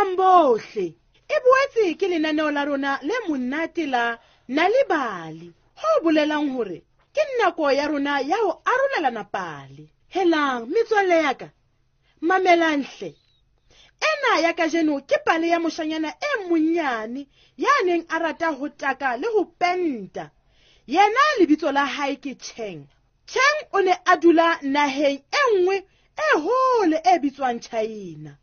Dumelang bohle. E boetse ke lenaneo la rona le monate la Nal'ibali, ho bolelang hore ke nako ya rona ya ho arolelana pale. Helang, metswalle ya ka, mamelang hle. Ena ya kajeno ke pale ya moshanyana e monnyane ya neng a rata ho taka le ho penta. Yena lebitso la hae ke Cheng. Cheng o ne a dula naheng e nngwe e hole e bitswang China.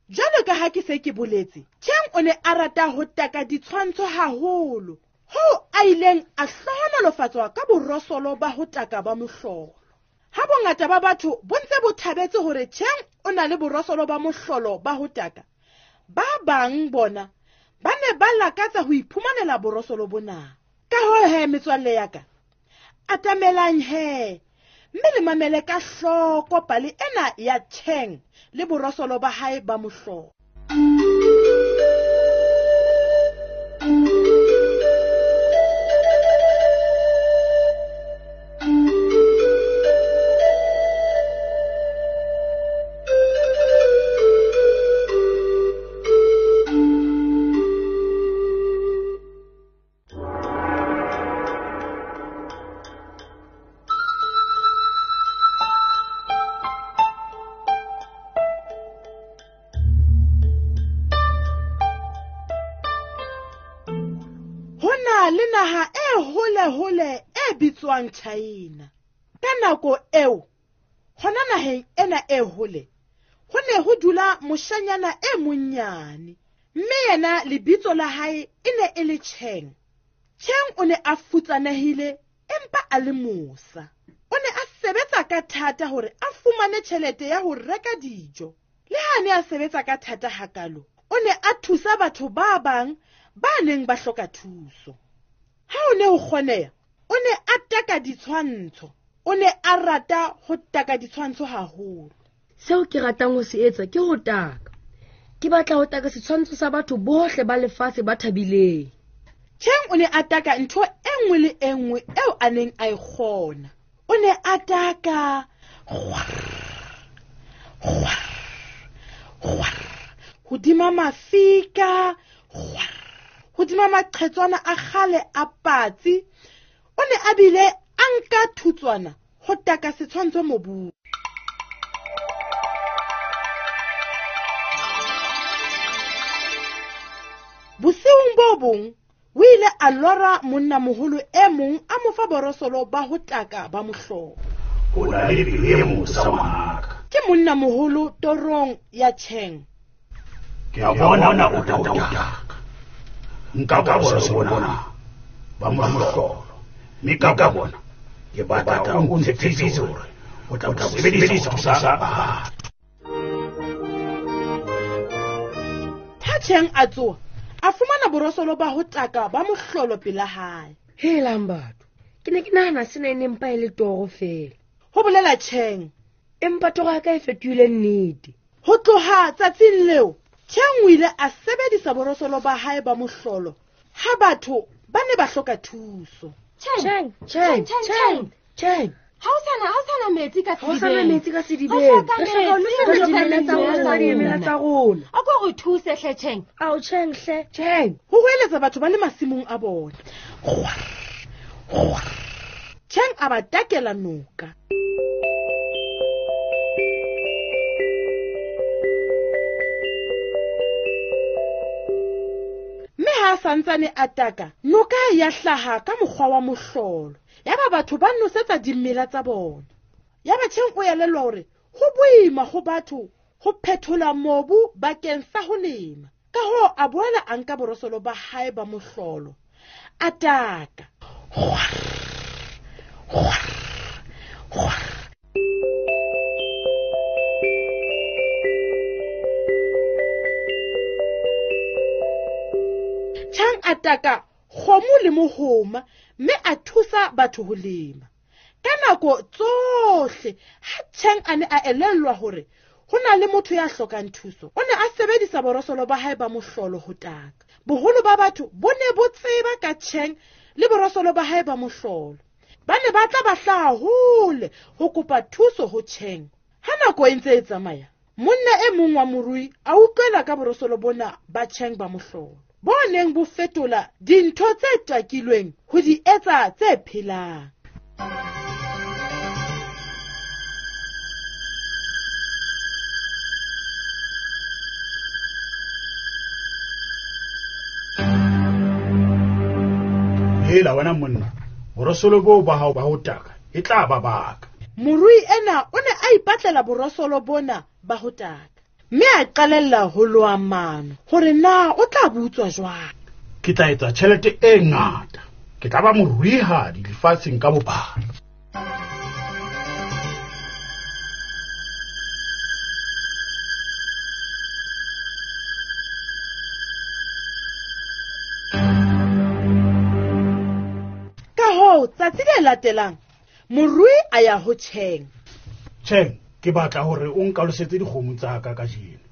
Jwalo ka ha ke se ke boletse, Cheng o ne a rata ho taka ditshwantsho haholo, hoo a ileng a hlohonolofatswa ka borosolo ba ho taka ba mohlolo. Ha bongata ba batho bo ntse bo thabetse hore Cheng o na le borosolo ba mohlolo ba ho taka, ba bang bona ba ne ba lakatsa ho iphumanela borosolo bona. Ka hoo he, metswalle ya ka, atamelang he mme le mamele ka hloko pale ena ya Cheng le borosolo ba hae ba mohlolo. Ho na le naha e hole-hole e bitswang China. Ka nako eo, hona naheng ena e hole, ho ne ho dula moshanyana e monnyane, mme yena lebitso la hae e ne e le Cheng. Cheng o ne a futsanehile empa a le mosa. O ne a sebetsa ka thata hore a fumane tjhelete ya ho reka dijo. Le ha a ne a sebetsa ka thata hakalo, o ne a thusa batho ba bang ba neng ba hloka thuso. Ha o ne ho kgoneha, o ne a taka ditshwantsho. O ne a rata ho taka ditshwantsho haholo. Seo ke ratang ho se etsa ke ho taka. Ke batla ho taka setshwantsho sa batho bohle ba lefatshe ba thabileng. Cheng o ne a taka ntho e nngwe le e nngwe eo a neng a e kgona. O ne a taka hodima mafika, hodima maqhetswana a kgale a patsi. O ne a bile a nka thutswana ho taka setshwantsho mobung. Bosiung bo bong o ile a lora monnamoholo e mong a mo fa borosolo ba ho taka ba mohlolo. O na le pelo e mosa ngwanaka. Ke monnamoholo torong ya Cheng. Ke a bona o tla o taka. Nka borosolo bona ba mohlolo. Mme ka bona ke batla o ntshepise hore o tla bo sebedisa ho thusa batho. Ha Cheng a tsoha, a fumana borosolo ba ho taka ba mohlolo pela hae. Helang batho, ke ne ke nahana sena e ne mpa e le toro feela. Ho bolela Cheng. Empa toro ya ka e fetohile nnete. Ho tloha tsatsing leo, Cheng o ile a sebedisa borosolo ba hae ba mohlolo ha batho ba ne ba hloka thuso. Cheng, Cheng, Cheng, Cheng. Ha o sana metsi ka Ha o sana sedibeng. metsi ka sedibeng. Re hloka Re hloka ho metsi, nosetsa re hloka dimela tsa metsi, rona, re dimela tsa rona. A ko re thuse hle, Cheng. Ao, Cheng hle. Cheng. Ho hoeletsa batho ba le masimong a bona. Cheng a ba takela noka. Mme ha a santsane a taka, noka ya hlaha ka mokgwa wa mohlolo. Yaba batho ba nosetsa dimela tsa bona. Yaba Cheng o elellwa hore ho boima ho batho ho phethola mobu bakeng sa ho lema. Ka hoo a boela a nka borosolo ba hae ba mohlolo. A taka. Cheng a taka kgomo le mohoma mme a thusa batho ho lema. Ka nako tsohle ha Cheng a ne a elellwa hore ho na le motho ya hlokang thuso, o ne a sebedisa borosolo ba hae ba mohlolo ho taka. Boholo ba batho bo ne bo tseba ka Cheng le borosolo ba hae ba mohlolo. Ba ne ba tla ba hlaha hole ho kopa thuso ho Cheng. Ha nako e ntse e tsamaya, Monna e mong wa morui a utlwela ka borosolo bona ba Tjheng ba mohlolo, bo neng bo fetola dintho tse takilweng ho di etsa tse phelang. Hela wena monna, borosolo boo ba hao ba ho taka e tla ba baka. Morui ena o ne a ipatlela borosolo bona ba ho taka, mme a qalella ho loha mano hore na o tla bo utswa jwang. Ke tla etsa tjhelete e ngata, ke tla ba moruihadi lefatsheng ka bophara. Ka hoo, tsatsi le latelang, morui a ya ho Tjheng. Tjheng, ke batla hore o nkalosetse dikgomo tsa ka kajeno,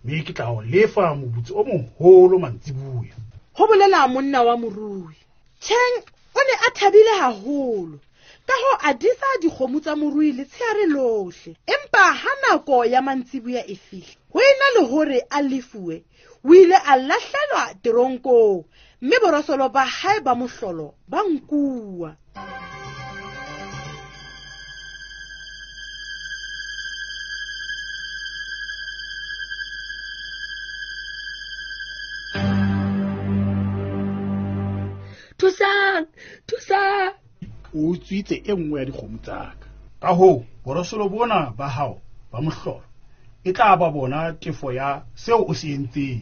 mme ke tla o lefa moputso o moholo mantsiboya. Ho bolela monna wa morui. Tjheng o ne a thabile haholo, ka hoo a disa dikgomo tsa morui letsheare lohle. Empa ha nako ya mantsiboya e fihla, ho ena le hore a lefuwe, o ile a lahlelwa teronkong, mme borosolo ba hae ba mohlolo ba nkuwa. Thusang, thusang. O utswitse e nngwe ya dikgomo tsa ka. Ka hoo, borosolo bona ba hao ba mohlolo e tla ba bona tefo ya seo o se entseng.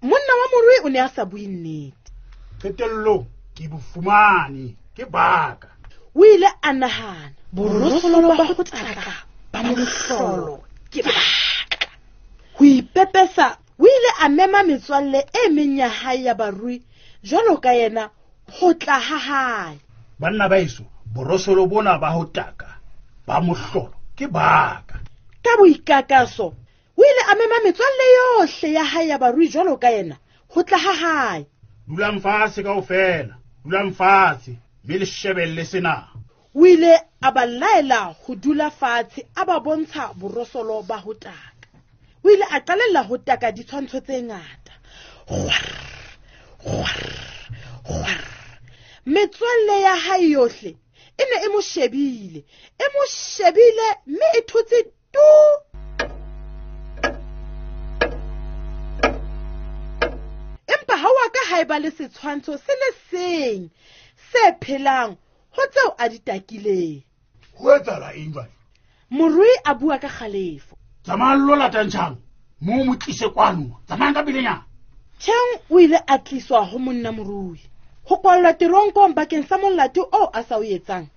Monna wa morui o ne a sa bue nnete. Qetellong ke bo fumane, ke baka. O ile a nahana, borosolo ba ho taka ba mohlolo ke baka. Ho ipepesa, o ile a mema metswalle e meng ya hae ya barui jwalo ka yena ho tla ha hae. Banna ba heso, borosolo bona ba ho taka ba mohlolo ke baka. Ka boikakaso, o ile a mema metswalle yohle ya hae ya barui jwalo ka yena ho tla ha hae. Dulang fatshe kaofela, dulang fatshe, mme le shebelle sena. O ile a ba laela ho dula fatshe, a ba bontsha borosolo ba ho taka. O ile a qalella ho taka ditshwantsho tse ngata. Kgwar, kgwar, kgwar. Metswalle ya hae yohle e ne e mo shebile, e mo shebile mme e thotse tu. Empa ha wa ka ha eba le setshwantsho se le seng se phelang ho tseo a di takileng. Ho etsahala eng jwale? Morui a bua ka kgalefo. Tsamayang lo latang Tjheng, mo mo tlise kwano, tsamayang ka pelenyana. Tjheng o ile a tliswa ho monna morui. Ho kwallwa teronkong bakeng sa molato oo a sa o etsang.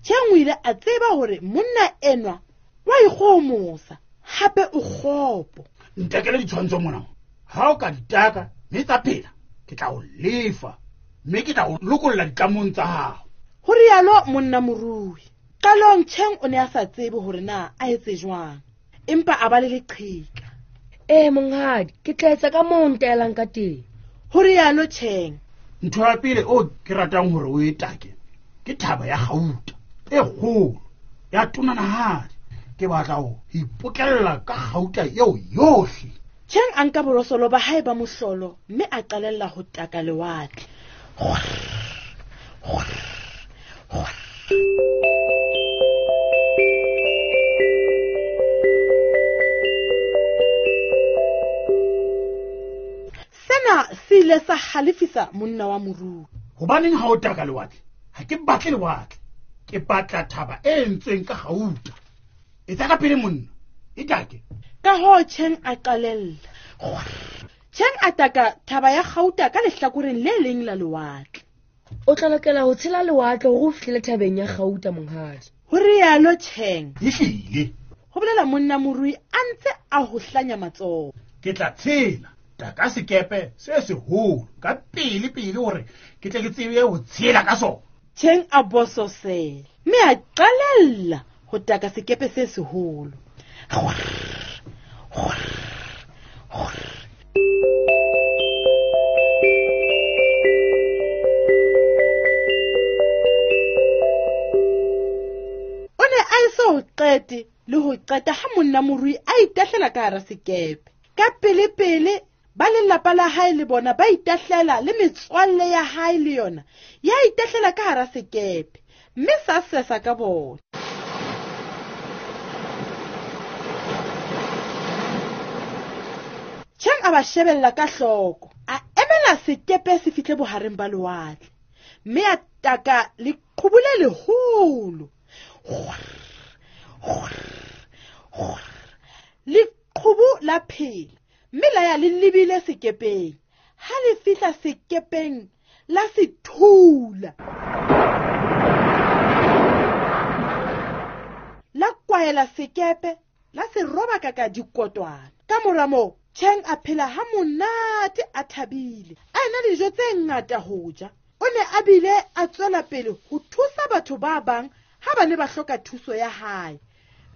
Tjheng o ile a tseba hore monna enwa wa ikgohomosa, hape o kgopo. Ntakele ditshwantsho mona. Ha o ka di taka mme tsa phela, ke tla o lefa, mme ke tla o lokolla ditlamong tsa hao. Ho rialo monna morui. Qalong Tjheng o ne a sa tsebe hore na a etse jwang, empa a ba le leqheka. Ee, monghadi, ke tla etsa ka moo o ntaelang ka teng. Ho rialo Tjheng. Ntho ya pele o ke ratang hore o e take ke thaba ya kgauta e kgolo ya tonanahadi. Ke batla ho ipokella ka kgauta eo yohle. Tjheng a nka borosolo ba hae ba mohlolo mme a qalella ho taka lewatle. Kgwar, kgwar, kgwar. Sena se ile sa halefisa monna wa morui. Hobaneng ha o taka lewatle? Ha ke batle lewatle, ke batla thaba e entsweng ka kgauta. Etsa ka pele monna, e take. Ka hoo Tjheng a qalella. Kgwar. Tjheng a taka thaba ya kgauta ka lehlakoreng le leng la lewatle. O tla lokela ho tshela lewatle hore o fihlele thabeng ya kgauta, monghadi. Ho rialo Tjheng. Ehlile. Ho bolela monna morui a ntse a ho hlanya matsoho. Ke tla tshela taka sekepe se seholo ka pele pele hore ke tle ke tsebe ho tshela ka sona. Tjheng a bososela mme a qalella ho taka sekepe se seholo. Kgwar, kgwar, kgwar. O ne a eso ho qete le ho qeta ha monna morui a itahlela ka hara sekepe. Ka pele-pele ba lelapa la hae le bona ba itahlela, le metswalle ya hae le yona ya itahlela ka hara sekepe, mme sa sesa ka bona. Tjheng a ba shebella ka hloko, a emela sekepe se fihle bohareng ba lewatle, mme a taka leqhubu le leholo. Leqhubu la phela, mme la ya le lebile sekepeng. Ha le fihla sekepeng la se thula, la kwahela sekepe, la se robaka ka dikotwana. Ka mora moo Tjheng a phela ha monate, a thabile, a ena le dijo tse ngata ho ja. O ne a bile a tswela pele ho thusa batho ba bang ha ba ne ba hloka thuso ya hae,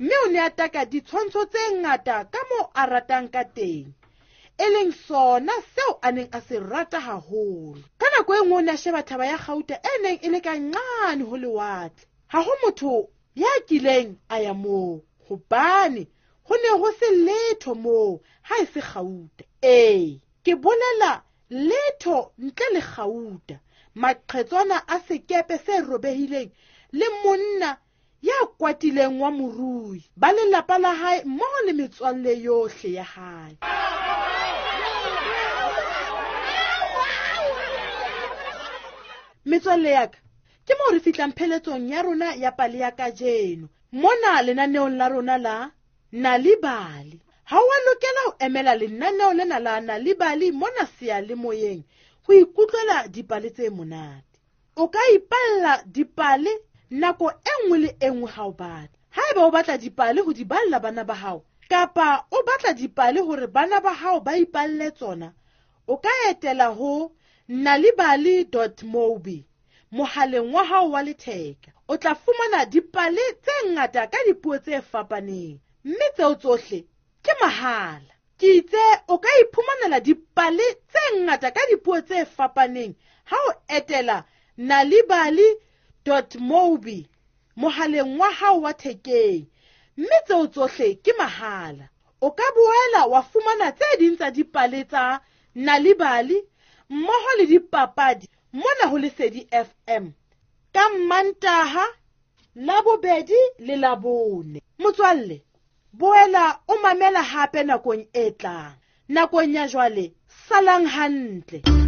mme o ne a taka ditshwantsho tse ngata ka moo a ratang ka teng, e leng sona seo a neng a se rata haholo. Ka nako e nngwe o ne a sheba thaba ya kgauta e neng e le ka nqane ho lewatle. Ha ho motho ya kileng a ya moo, hobane ho ne ho se letho moo ha e se kgauta. Ee, ke bolela letho ntle le kgauta, maqhetswana a sekepe se robehileng le monna ya kwatileng wa morui, ba lelapa la hae mmoho le metswalle yohle ya hae. Metswalle ya ka, ke moo re fihlang pheletsong ya rona ya pale ya kajeno mona lenaneong la rona la Nal'ibali. Ha o a lokela ho emela lenaneo lena la Nal'ibali mona seyalemoyeng ho ikutlwela dipale tse monate. O ka ipalla dipale nako e nngwe le e nngwe ha o batla. Haeba o batla dipale ho di balla bana ba hao, kapa o batla dipale hore bana ba hao ba ipalle tsona, o ka etela ho nalibali.mobi mohaleng wa hao wa letheka. O tla fumana dipale tse ngata ka dipuo tse fapaneng, mme tseo tsohle ke mahala. Ke itse o ka iphumanela dipale tse ngata ka dipuo tse fapaneng ha o etela nalibali.mobi mohaleng wa hao wa thekeng, mme tseo tsohle ke mahala. O ka boela wa fumana tse ding tsa dipale tsa Nal'ibali mmoho le dipapadi mona ho Lesedi FM ka Mmantaha, Labobedi le Labone. Motswalle, boela o mamela hape nakong e tlang. Nakong ya jwale, salang hantle.